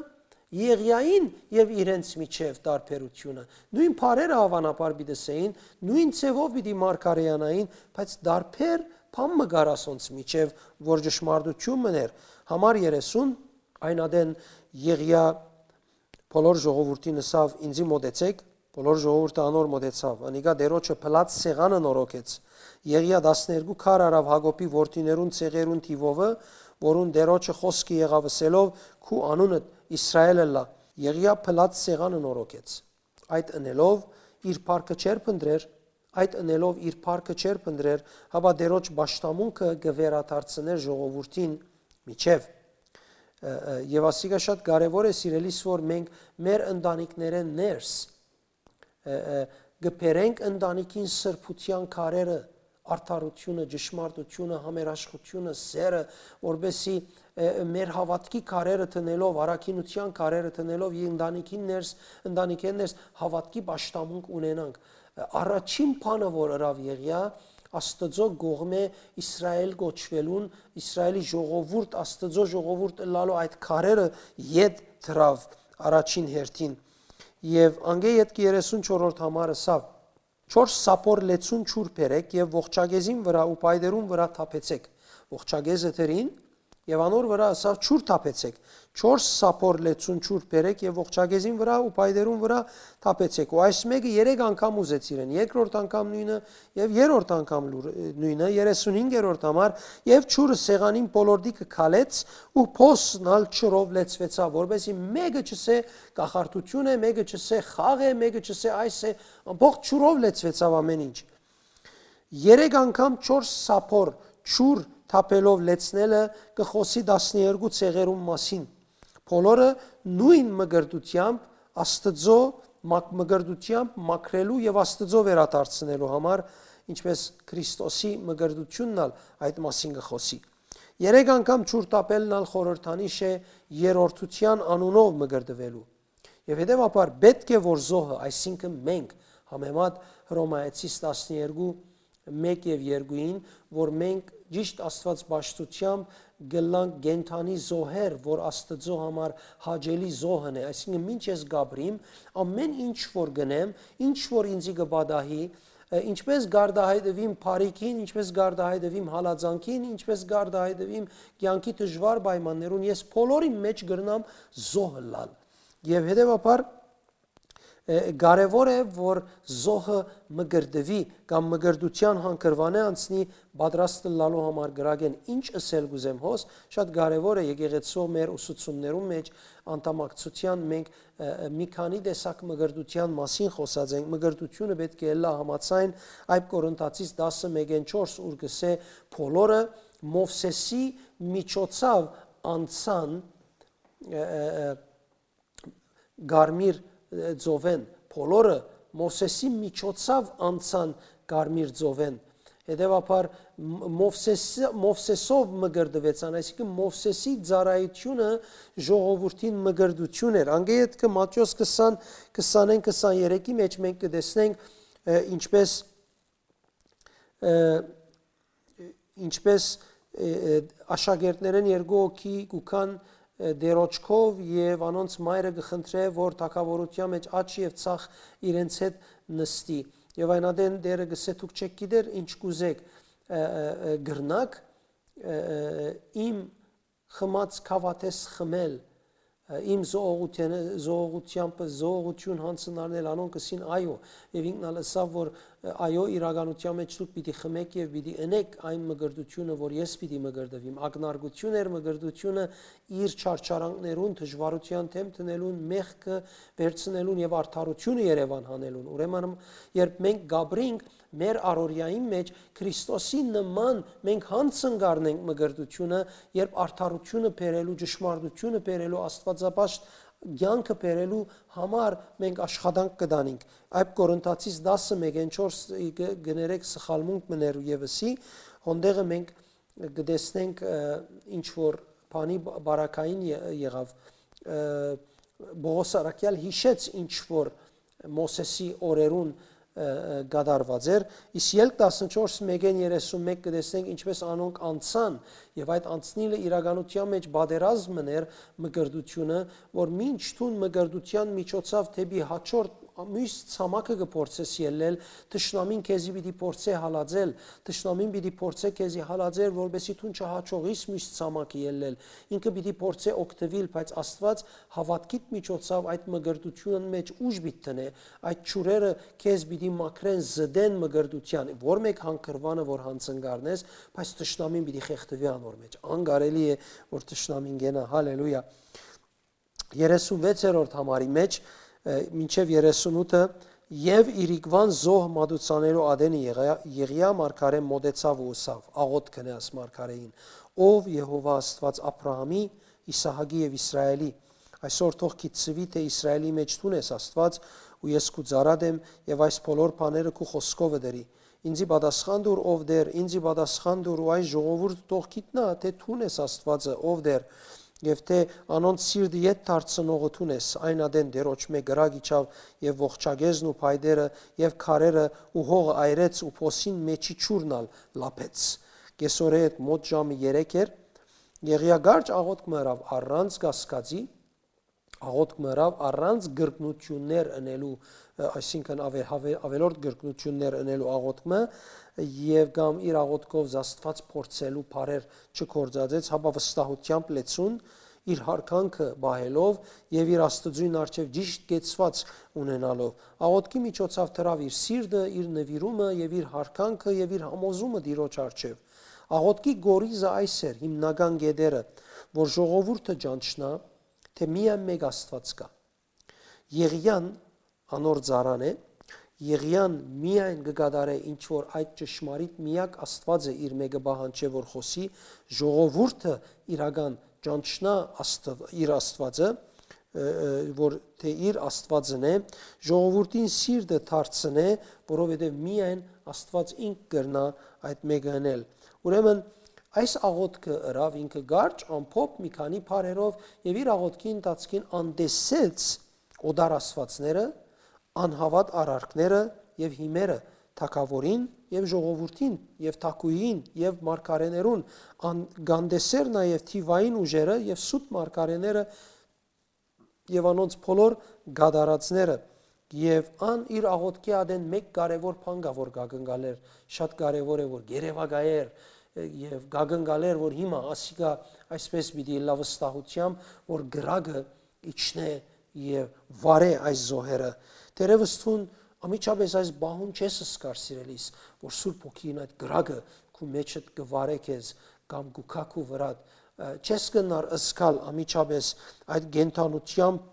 Եղիային եւ իրենց միջեւ տարբերությունը։ Նոյն բառերը, հավանաբար, պիտի սեին, նոյն ձեւով պիտի մարգարեանային, բայց տարբեր բան մը կար ասոնց միջեւ, որ ճշմարտութիւն մըն էր։ Համար երեսուն, այն ատեն Եղիա բոլոր ժողովուրդին ըսաւ. «Ինձի մոտեցէք»։ Բոլոր ժողովուրդը անոր մոտեցաւ։ Անիկա Տէրոջը փլած սեղանը նորոգեց։ Եղիա տասներկու քար առաւ Յակոբի որդիներուն ցեղերուն թիւովը, որուն Տէրոջը խօսքը եղաւ, ըսելով. «Քու անունդ Իսրայէլ ըլլայ»։ Եղիա փլած սեղանը նորոգեց։ Այդ ընելով, իր փառքը չէր փնտռեր, այդ ընելով իր փառքը չէր փնտռեր, հապա Տէրոջ պաշտամունքը կը վերադարձնէր ժողովուրդին միջեւ։ Ը, ը, եւ ասիկա շատ կարեւոր է, սիրելիս, որ մենք մեր ընտանիքներէն ներս, ը, ը, կը բերենք ընտանիքին սրբութեան քարերը, արդարութիւնը, ճշմարտութիւնը, համերաշխութիւնը, սերը, որպեսզի, ը, ը, մեր հաւատքի քարերը դնելով, առաքինութեան քարերը դնելով, եւ ընտանիքին ներս, ընտանիքէն ներս հաւատքի պաշտամունք ունենանք։ Ը, առաջին բանը, որ ըրաւ Եղիա, Աստուծոյ կողմէ Իսրայէլ կոչուելուն, Իսրայէլի ժողովուրդ, Աստուծոյ ժողովուրդ ըլլալու այդ քարերը ետ դրաւ առաջին հերթին։ Եւ անկէ ետքը երեսուն չորրորդ համար ըսաւ. «Չորս սափոր լեցուն ջուր բերէք եւ ողջագեզին վրայ ու պայտերուն վրայ թափեցէք»։ Ողջագեզը դրին, եւ անոր վրայ ըսաւ. «Ջուր թափեցէք»։ «Չորս սափոր լեցուն ջուր բերէք եւ ողջագեզին վրայ ու պայտերուն վրայ թափեցէք»։ Ու այս մէկը երեք անգամ ուզեց իրեն, երկրորդ անգամ նոյնը, եւ երրորդ անգամ լուր-, նոյնը, երեսունհինգերորդ համար, եւ ջուրը սեղանին բոլորտի կը քալեց ու փոսն ալ ջուրով լեցուեցաւ, որպեսզի մէկը չսէ կախարդութիւն է, մէկը չսէ խաղ է, մէկը չսէ այս է, ամբողջ ջուրով լեցուեցաւ ամէն ինչ։ Երեք անգամ չորս սափոր ջուր թափելով լեցնելը կը խօսի տասներկու ցեղերուն մասին։ Բոլորը նոյն մկրտութեամբ Աստուծոյ մակ-, մկրտութեամբ մաքրելու եւ Աստուծոյ վերադարձնելու համար, ինչպէս Քրիստոսի մկրտութիւնն ալ այդ մասին կը խօսի։ Երեք անգամ ջուր թափելն ալ խորհրդանիշ է երրորդութեան անունով մկրտուելու։ Եւ հետեւաբար պէտք է որ զոհը, այսինքն մենք, համեմատ Հռոմայեցիս տասներկու, մէկ եւ երկուին, որ մենք ճիշտ Աստուած պաշտութեամբ կ'ըլլանք կենդանի զոհեր, որ Աստուծոյ համար հաճելի զոհն է, այսինքն մինչ ես կ'ապրիմ, ամէն ինչ որ կ'ընեմ, ինչ որ ինծի կը պատահի, ը, ինչպես կ'արտահայտուիմ բարիքին, ինչպես կ'արտահայտուիմ հալածանքին, ինչպես կ'արտահայտուիմ կեանքի դժուար պայմաններուն, ես բոլորին մէջ կրնամ զոհ ըլլալ։ Եւ հետեւաբար, ը, կարեւոր է, որ զոհը մկրտուի կամ մկրտութեան հանգրուանէ անցնի, պատրաստ ըլլալու համար կրակէն։ Ինչ ըսել կ'ուզեմ հոս, շատ կարեւոր է, եկեղեցու մեր ուսուցումներուն մէջ անդամակցութեան մենք, ը, ը, մի քանի տեսակ մկրտութեան մասին խօսած ենք։ Մկրտութիւնը պէտք է ըլլայ համաձայն Այդ Կորինթացիս տասը մէկէն չորս, ուր կ'ըսէ. «Բոլորը Մովսէսի միջոցաւ անցան, ը, ը, ը, Կարմիր, ը, ծովէն, բոլորը Մովսէսի միջոցաւ անցան Կարմիր ծովէն»։ Հետեւաբար, Մ-, Մովսէս-, Մովսէսով մկրտուեցան, այսինքն Մովսէսի ծառայութիւնը ժողովուրդին մկրտութիւն էր։ Անկէ ետքը Մատթէոս քսան, քսանին, քսաներեքի մէջ մենք կը տեսնենք, ը, ինչպես, ը, ինչպես, ը, ը, աշակերտներէն երկու հոգի կու գան, ը, Տէրոջքով եւ անոնց մայրը կը խնդրէ, որ թագաւորութեան մէջ աջ եւ ձախ իրենց հետ նստի։ Եւ այն ատեն Տէրը կ'ըսէ. «Դուք չէք գիտեր ինչ կ'ուզէք, ը, ը, ը, կրնաք, ը, ը, իմ խմած գաւաթէս խմել, ը, իմ զոհողութենը, զոհողութեամբը զոհողութիւն յանձն առնել»։ Անոնք ըսին. «Այո»։ Եւ ինքն ալ ըսաւ, որ, ը, այո, իրականութեան մէջ դուք պիտի խմէք եւ պիտի ընէք այն մկրտութիւնը, որ ես պիտի մկրտուիմ։ Ակնարկութիւն էր մկրտութիւնը իր չարչարանքներուն, դժուարութեան դէմ դնելուն, մեղքը վերցնելուն եւ արդարութիւնը երեւան հանելուն։ Ուրեմն, երբ մենք կ'ապրինք մեր առօրեային մէջ, Քրիստոսի նման մենք յանձն կ'առնենք մկրտութիւնը, երբ արդարութիւնը բերելու, ճշմարտութիւնը բերելու, աստուածապաշտ կեանքը բերելու համար մենք աշխատանք կը տանենք։ Այդ Կորինթացիս տասը մէկէն չորս, կը, կներեք, սխալմունք մը ներ եւսի, հոնդեղը մենք կը տեսնենք, ը, ինչ որ բանի բ-, բարակային ե-, եղաւ, ը, Պողոս առաքյալ յիշեց ինչ որ Մովսէսի օրերուն, ը, ը, կատարուած էր, իսկ Ելք տասնչորս մէկէն երեսունմէկ կը տեսնենք ինչպես անոնք անցան, եւ այդ անցնիլը իրականութեան մէջ պատերազմ մը ներ մկրտութիւնը, որ մինչ դուն մկրտութեան միջոցաւ դէպի հաջորդ մյուս ցամաքը կը փորձես ելլել, թշնամին քեզի պիտի փորձէ հալածել, թշնամին պիտի փորձէ քեզի հալածել, որպեսզի դուն չհաջողիս մյուս ցամաքը ելլել։ Ինքը պիտի փորձէ օգտուիլ, բայց Աստուած հաւատքիդ միջոցաւ այդ մկրտութիւնը մէջ ուժ պիտի դնէ, այդ ջուրերը քեզ պիտի մաքրեն, զտեն մկրտութեան, որ մէկ հանգրուանը որ յանձն կ'առնես, բայց թշնամին պիտի խեղդուի անոր մէջ։ Անկարելի է, որ թշնամին կենայ։ Հալելույա։ Երեսունվեցերորդ համարի մէջ, ը, մինչեւ երեսունութը Եւ իրիկուան զոհ մատուցանելու ատենը եղեա, Եղիա մարգարէ մօտեցաւ ու ըսաւ. «Աղօթք կ'ընէ», ըսաւ մարգարէին, «ով Եհովա Աստուած Աբրահամի, Իսահակի եւ Իսրայէլի։ Այսօր թող գիտցուի, թէ Իսրայէլի մէջ դուն ես Աստուած, ու ես քու ծառադ եմ, եւ այս բոլոր բաները քու խօսքովդ ըրի։ Ինծի պատասխան տուր, ով Տէր, ինծի պատասխան տուր, ու այս ժողովուրդը թող գիտնայ, թէ դուն ես Աստուածը, ով Տէր, եւ թէ անոնց սիրտը ետ դարձնողը դուն ես»։ Այն ատեն Տէրոջմէ կրակ իջաւ եւ ողջագեզն ու փայտերը եւ քարերը ու հողը այրեց ու փոսին մէջի ջուրն ալ լափեց։ Կեսօրէ հետ մօտ ժամը երեք էր, Եղիա կարճ աղօթք մը ըրաւ առանց կասկածի, աղօթք մը ըրաւ առանց կրկնութիւններ ընելու, ը, այսինքն, աւե-, աւե-, աւելորդ կրկնութիւններ ընելու աղօթք մը, եւ կամ իր աղօթքով Աստուած փորձելու բառեր չգործածեց, հապա վստահութեամբ լեցուն, իր յարգանքը պահելով եւ իր Աստուծոյն առջեւ ճիշտ կեցուած ունենալով։ Աղօթքի միջոցաւ դրաւ իր սիրտը, իր նուիրումը եւ իր յարգանքը եւ իր համոզումը Տիրոջ առջեւ։ Աղօթքի կորիզը այս էր, հիմնական կետերը, որ ժողովուրդը ճանչնայ, թէ միայն մէկ Աստուած կայ։ Եղիան անոր ծառան է, Եղիան միայն կը կատարէ ինչ որ այդ ճշմարիտ միակ Աստուածը իր մէկը պահանջէ որ խօսի, ժողովուրդը իրական ճանչնայ Աստուա-, իր Աստուածը, ը, ը, որ թէ իր Աստուածն է, ժողովուրդին սիրտը դարձնէ, որովհետեւ միայն Աստուած ինք կրնայ այդ մէկը ընել։ Ուրեմն այս աղօթքը ըրաւ ինքը կարճ, ամփոփ, մի քանի բառերով, եւ իր աղօթքի ընթացքին անտեսեց օտար աստուածները, անհաւատ արարքները եւ հիմերը, թագաւորին եւ ժողովուրդին եւ թագուհին եւ մարգարէներուն, ան-, կ'անտեսէր նաեւ թիւային ուժերը եւ սուտ մարգարէները եւ անոնց բոլոր կատարածները։ Եւ ան իր աղօթքի ատեն մէկ կարեւոր բան կայ որ կ'ակնկալէր, շատ կարեւոր է որ երեւակայէր, ը, եւ կ'ակնկալէր որ հիմա ասիկա այսպես պիտի ըլլայ վստահութեամբ որ կրակը իջնէ եւ վարէ այս զոհերը։ Թերեւս դուն անմիջապէս այս պահուն չես զգար, սիրելիս, որ Սուրբ Հոգին այդ կրակը քու մեջդ կը վարէ քեզ կամ կու գայ քու վրադ, ը, չես կրնար զգալ անմիջապէս այդ կենդանութեամբ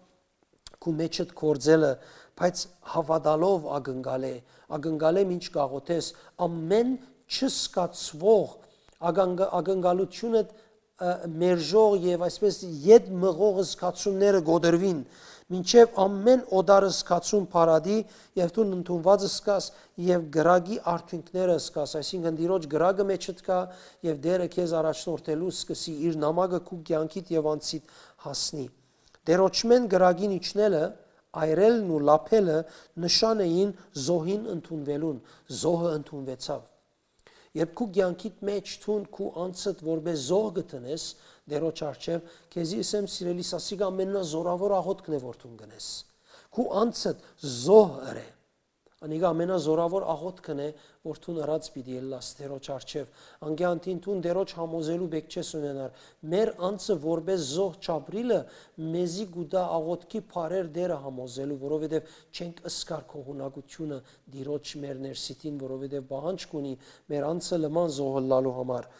քու մեջդ գործելը, բայց հաւատալով ակնկալէ, ակնկալէ մինչ կ'աղօթես, ամեն չզգացուող ակնկ-, ակնկալութիւնը, ը, մերժող եւ այսպես ետ մղող զգացումները կոտրուին, մինչեւ ամեն օտար զգացում փարատի եւ դուն ընդունուած զգաս եւ կրակի արդիւնքները զգաս, այսինքն Տիրոջ կրակը մեջդ կայ եւ Տէրը քեզ առաջնորդելու սկսի, իր նամակը քու կեանքիդ եւ անձիդ հասնի։ Տէրոջմէն կրակին իջնելը, այրելն ու լափելը նշան էին զոհին ընդունուելուն, զոհը ընդունուեցաւ։ Երբ քու կեանքիդ մէջ դուն քու անձդ որպէս զոհ կը դնես Տէրոջ առջեւ, քեզի ըսեմ, սիրելիս, ասիկա ամենազորաւոր աղօթքն է որ դուն կ'ընես։ Քու անձդ զոհ ըրէ։ Անիկա ամենազորաւոր աղօթքն է որ դուն ըրած պիտի ըլլաս Տէրոջ առջեւ։ Անկեանտին դուն Տէրոջ համոզելու պէք չես ունենար։ Մեր անձը որպէս զոհ չապրիլը մեզի կու տայ աղօթքի բառեր Տէրը համոզելու, որովհետեւ չենք զգար գոհունակութիւնը Տիրոջ մեր ներսիդին, որովհետեւ պահանջ կունի մեր անձը լման զոհ ըլլալու համար։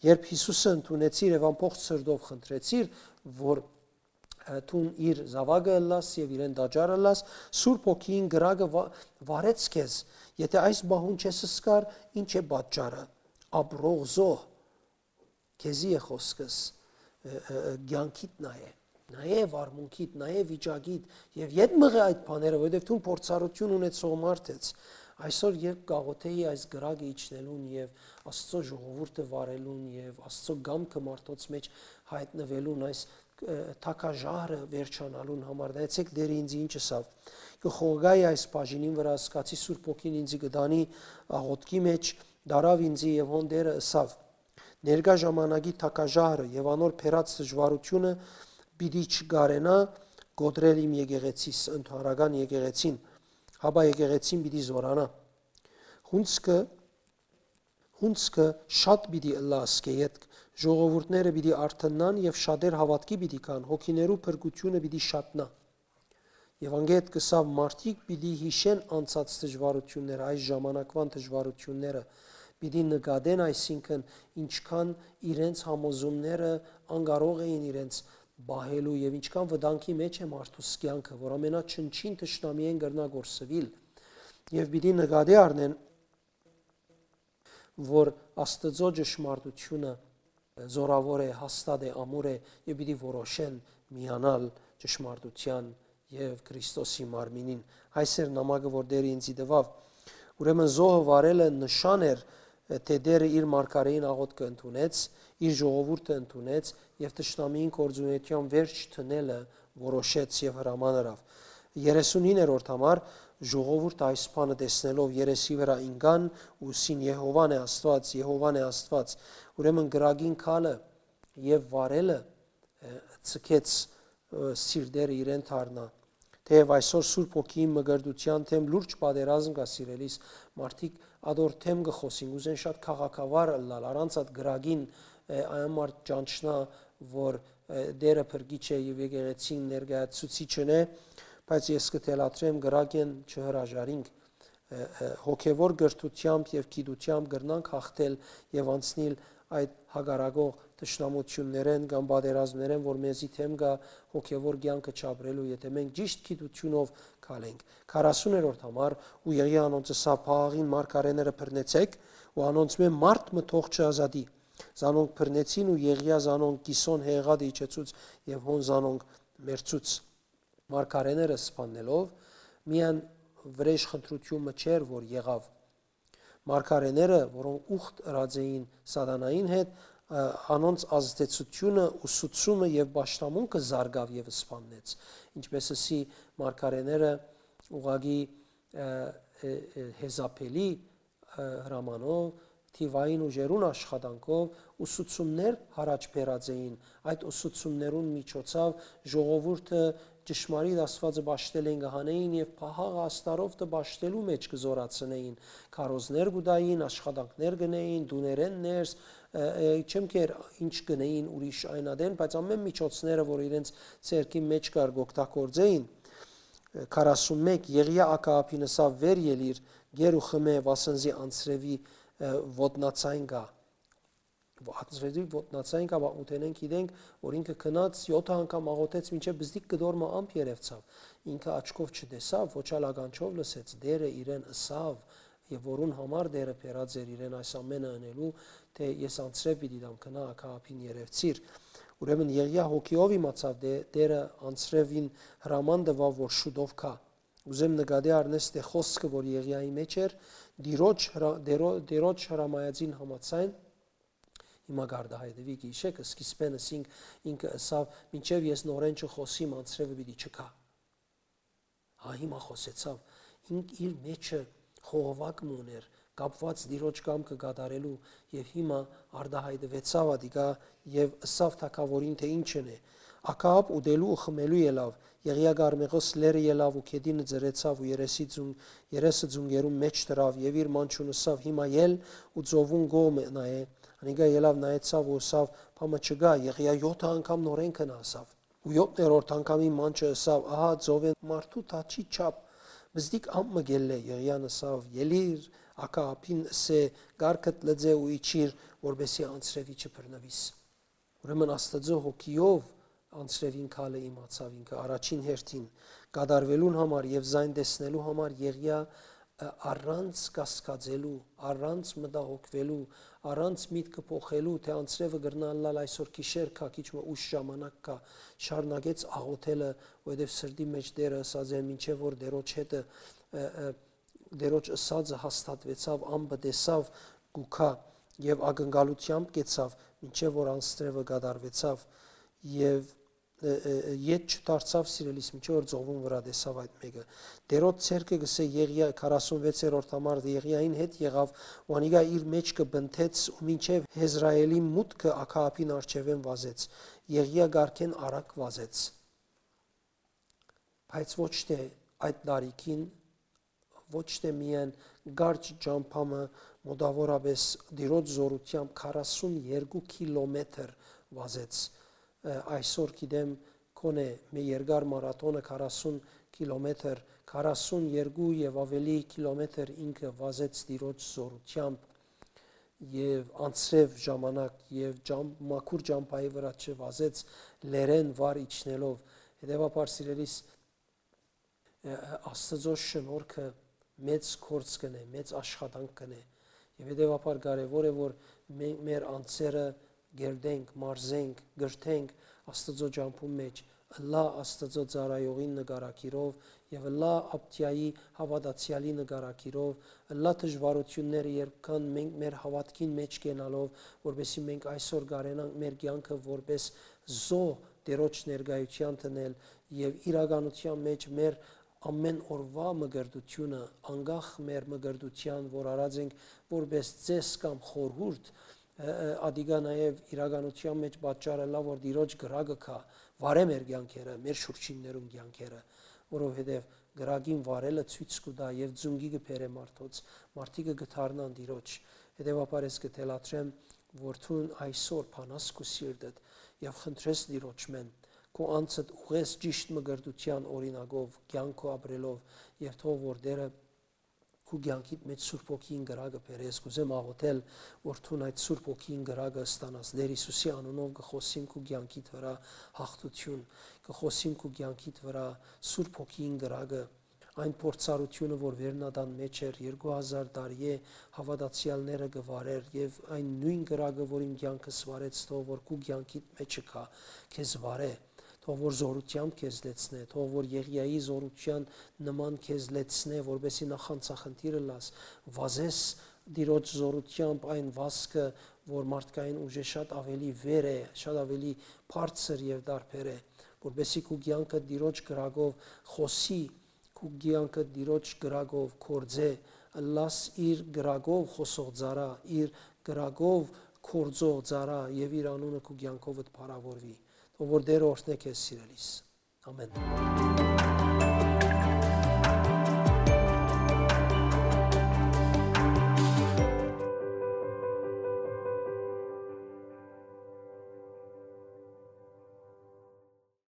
Երբ Յիսուսը ընդունեցիր եւ ամբողջ սրտով խնդրեցիր, որ, ը, դուն իր զաւակը ըլլաս եւ իրեն տաճար ըլլաս, Սուրբ Հոգին կրակը վա-, վարեց քեզ։ Եթե այս պահուն չես զգար, ի՞նչ է պատճառը։ Ապրող զոհ, քեզի է խօսքս, ը, ը, ը, կեանքիդ նայէ, նայէ վարմունքիդ, նայէ վիճակիդ եւ ետ մղէ այդ բաները, որովհետեւ դուն փորձառութիւն ունեցող մարդ ես։ Այսօր երբ կաղոթեի այս կրակը իջնելուն եւ Աստծո ժողովուրդը վարելուն եւ Աստծո կամքը մարդոց մէջ հայտնվելուն այս, ը, թագաժահրը վերջանալուն համար, նայեցեք Տէրը ինձ ինչ ըսաւ։ Կը խողգայի այս բաժինին վրայ, զգացի Սուրբ Հոգին ինձի կը տանի աղոթքի մէջ, դարաւ ինձի եւ հոն Տէրը ըսաւ. «Ներկայ ժամանակի թագաժահրը եւ անոր բերած դժուարութիւնը պիտի չկարենայ կոտրել իմ եկեղեցիս, ընդհանրական եկեղեցին»։ Հապա եկեղեցին պիտի զօրանայ։ Հունձքը, հունձքը շատ պիտի ըլլայ ասկէ ետք, ժողովուրդները պիտի արթննան եւ շատեր հաւատքի պիտի գան, հոգիներու փրկութիւնը պիտի շատնայ։ Եվ անգետ կսաւ մարդիկ պիտի յիշեն անցած դժվարությունները, այս ժամանակվան դժվարությունները, պիտի նկատեն, այսինքն, ինչքան իրենց համոզումները անկարող էին իրենց պահելու եւ ինչքան վտանգի մեջ է մարդուս կյանքը, որ ամենաչնչին թշնամիեն կրնա կորսուիլ։ Եւ պիտի նկատի առնեն, որ Աստուծոյ ճշմարտութիւնը զօրաւոր է, հաստատ է, ամուր է, եւ պիտի որոշեն միանալ ճշմարտութեան եւ Քրիստոսի մարմինին։ Այս էր նամակը, որ Տէրը ինծի տուաւ։ Ուրեմն զոհը վարելը նշան էր, թէ Տէրը իր մարգարէին աղօթքը ընդունեց, իր ժողովուրդը ընդունեց եւ թշնամիին գործունեութեան վերջ դնելը որոշեց եւ հրաման ըրաւ։ Երեսունհինգերորդ համար ժողովուրդը այս բանը տեսնելով երեսի վրայ ինկան ու ըսին. «Եհովան է Աստուած, Եհովան է Աստուած»։ Ուրեմն կրակին քալը եւ վարելը, ը, ցկեց, ը, սիրտերը իրեն դառնայ։ Թէեւ այսօր Սուրբ Հոգիին մկրտութեան դէմ լուրջ պատերազմ կայ, սիրելիս, մարդիկ ատոր դէմ կը խօսին, կ'ուզեն շատ քաղաքավար ըլլալ, առանց այդ կրակին, ը, այն մարդ ճանչնայ, որ, ը, Տէրը փրկիչ է եւ եկեղեցին ներկայացուցիչն է, բայց ես կը թելադրեմ, կրակէն չհրաժարինք, ը, ը, հոգեվոր կրթութեամբ եւ գիտութեամբ կրնանք յաղթել եւ անցնիլ այդ հակառակող թշնամութիւններէն կամ պատերազմներէն, որ մեզի դէմ կայ հոգեվոր կեանքը չապրելու, եթէ մենք ճիշտ գիտութիւնով քալենք։ Քառասուներորդ համար, ու Եղիա անոնց ըսաւ. «Փաղաղին մարգարէները բռնեցէք ու անոնցմէ մարդ մը թող չազատի»։ Զանոնք բռնեցին ու Եղիա զանոնք կիսոն հեղատը իջեցուց եւ հոն զանոնք մեռցուց։ Մարգարէները սպաննելով, միայն վրէժ խնդրութիւն մը չէր, որ եղաւ։ Մարգարէները, որոնք ուխտ ըրած էին սատանային հետ, ը, անոնց ազդեցութիւնը, ուսուցումը եւ պաշտամունքը զարգաւ եւ սպաննեց։ Ինչպէս ըսի, մարգարէները ուղղակի, ը, ը, ը, հեզապելի, ը, հրամանով, թիվային ուժերուն աշխատանքով ուսուցումներ յառաջ բերած էին։ Այդ ուսուցումներուն միջոցով ժողովուրդը ճշմարիտ Աստուածը պաշտել են, կը հանէին եւ փաղաղը աստարով պաշտելու մէջ կը զօրացնէին։ Քարոզներ կու տային, աշխատանքներ կ'ընէին, տուներէն ներս, ը, ը, չեմ կեր ինչ կ'ընէին ուրիշ այն ատեն, բայց ամէն միջոցները, որ իրենց ձեռքին մէջ կար, կ'օգտագործէին։ Քառասունմեկ, Եղիա Ակաաբին ըսաւ. «Վեր ելիր, կեր ու խմէ, վասն զի անձրեւի, ը, ոտնացայն կայ»։ Անձրեւի ոտնացայն կայ, պատմութենէն գիտենք, որ ինքը գնաց յոթ անգամ աղօթեց, մինչեւ բզդիկ կտոր մը ամպ երեւցաւ։ Ինքը աչքով չտեսաւ, ոչ ալ ականջով լսեց, Տէրը իրեն ըսաւ, եւ որուն համար Տէրը բերած էր իրեն այս ամէնը ընելու, թէ «Ես անձրեւ պիտի տամ, գնա Ակաաբին երեւցիր»։ Ուրեմն Եղիա հոգիով իմացաւ, թէ Տէրը անձրեւին հրաման տուաւ, որ շուտով գայ։ Ուզեմ նկատի առնես, թէ խօսքը, որ Եղիայի մէջ էր, Տիրոջ հրա-, Տերո-, Տիրոջ հրամայածին համաձայն, հիմա կարտահայտուի, գիշեր, սկիզբէն ըսինք, ինքը ըսաւ. «Մինչեւ ես նորէն չխօսիմ, անձրեւը պիտի չգայ»։ Հա, հիմա խօսեցաւ։ Ինք իր մէջը խողովակ մը ունէր, կապուած Տիրոջ կամքը կատարելու, եւ հիմա արտահայտուեցաւ ատիկա եւ ըսաւ թագաւորին, թէ ինչն է։ Ակաապ ուտելու ու խմելու ելաւ, Եղիա Կարմեղոս լեռը ելաւ ու գետինը ծռեցաւ ու երեսի ձուն-, երեսը ձունկերուն մէջ դրաւ եւ իր մանչուն ըսաւ. «Հիմա ել ու ծովուն կողմը նայէ»։ Անիկա ելաւ նայեցաւ ու ըսաւ. «Բան մը չկայ»։ Եղիա յոթ անգամ նորէն գնացաւ։ Ու յոթերորդ անգամին մանչը ըսաւ. «Ահա ծովէն մարդու թաչի չափ բզդիկ ամպ մը կ'ելլէ»։ Եղիան ըսաւ. «Ելիր, Ակաապին ըսէ. կառքդ լուծէ ու իջիր, որպեսզի անձրեւի չբռնուիս»։ Ուրեմն Աստուծոյ հոգիով անձրեւին քալը իմացաւ ինքը առաջին հերթին կատարուելուն համար եւ զայն տեսնելու համար Եղիա, ը, առանց կասկածելու, առանց մտահոգուելու, առանց միտքը փոխելու, թէ անձրեւը կրնայ ըլլալ այսօր գիշեր կայ, քիչ մը ուշ ժամանակ կայ, շարունակեց աղօթելը, որովհետեւ սրտի մէջ Տէրը ըսած էր, մինչեւ որ Տիրոջ հետը, ը, ը, Տիրոջ ըսածը հաստատուեցաւ, ամպը տեսաւ կու գայ եւ ակնկալութեամբ կեցաւ, մինչեւ որ անձրեւը կատարուեցաւ եւ, ը, ը, ը, ետ չդարձաւ, սիրելիս, մինչեւ որ ծովուն վրայ տեսաւ այդ մէկը։ Տիրոջ ցերկը, կ'ըսէ Եղիա, քառասունվեցերորդ համար, Եղիային հետ եղաւ ու անիկա իր մէջ կը բնթեց ու մինչեւ Յեզրայէլի մուտքը Ակաապին առջեւէն վազեց։ Եղիա կառքէն արագ վազեց, բայց ոչ թէ այդ տարիքին, ոչ թէ միայն կարճ ճամբայ մը, մոտաւորապէս Տիրոջ զօրութեամբ քառասուն երկու կիլոմետր վազեց։ Ը, այսօր գիտեմ, քոնէ մէ երկար մարաթոնը քառասուն կիլոմետր, քառասուն երկու եւ աւելի կիլոմետր ինքը վազեց Տիրոջ զօրութեամբ եւ անձրեւ ժամանակ եւ ճամ-, մաքուր ճամբայի վրայ չվազեց, լեռէն վար իջնելով։ Հետեւաբար, սիրելիս, ը, Աստուծոյ շնորհքը մեծ գործ կ'ընէ, մեծ աշխատանք կ'ընէ։ Եւ հետեւաբար կարեւոր է, որ մենք մեր անձերը կերտենք, մարզենք, կրթենք Աստուծոյ ճամբուն մէջ, ըլլայ Աստուծոյ ծառայողին նկարագիրով եւ ըլլայ Աբդիայի հաւատացեալի նկարագիրով, ըլլայ դժուարութիւնները, երբ կան, մենք մեր հաւատքին մէջ կենալով, որպեսզի մենք այսօր կարենանք մեր կեանքը որպես զոհ Տէրոջ ներկայութեան դնել եւ իրականութեան մէջ մեր ամէն օրուայ մկրտութիւնը, անկախ մեր մկրտութեան, որ արած ենք որպես ծէս կամ խորհուրդ, ը, ը, ատիկա նաեւ իրականութեան մէջ պատճառ ըլլայ, որ Տիրոջ կրակը գայ, վարէ մեր կեանքերը, մեր շուրջիններուն կեանքերը, որովհետեւ կրակին վարելը ցոյց կու տայ եւ ծունկի կը բերէ մարդոց, մարդիկը կը դառնան Տիրոջ։ Հետեւաբար ես կը թելադրեմ, որ դուն այսօր բանաս քու սիրտդ եւ խնդրես Տիրոջմէն, քու անձդ ուղղես ճիշդ մկրտութեան օրինակով, կեանքով ապրելով, եւ թող որ Տէրը քու կեանքիդ մէջ Սուրբ Հոգին կրակը բերես։ Կ'ուզեմ աղոթել, որ դուն այդ Սուրբ Հոգին կրակը ստանաս։ Տէր Յիսուսի անունով կը խօսիմ քու կեանքիդ վրայ հաղթութիւն, կը խօսիմ քու կեանքիդ վրայ Սուրբ Հոգին կրակը, այն փորձառութիւնը, որ վերնատան մէջ էր, երկու հազար տարի է հաւատացեալները կը վարէր, եւ այն նոյն կրակը, որ իմ կեանքս վարեց, թող որ քու կեանքիդ մէջը գայ, քեզ վարէ, թող որ զօրութեամբ քեզ լեցնէ, թող որ Եղիայի զօրութեան նման քեզ լեցնէ, որպեսզի նախանձախնդիր ըլլաս, վազես Տիրոջ զօրութեամբ այն վազքը, որ մարդկային ուժէ շատ աւելի վեր է, շատ աւելի բարձր եւ տարբեր է, որպեսզի քու կեանքը Տիրոջ կրակով խօսի, քու կեանքը Տիրոջ կրակով գործէ, ըլլաս իր կրակով խօսող ծառայ, իր կրակով գործող ծառայ եւ իր անունը քու կեանքովդ փառաւորուի։ Թող որ Տէրը օրհնէ քեզ, սիրելիս։ Ամեն։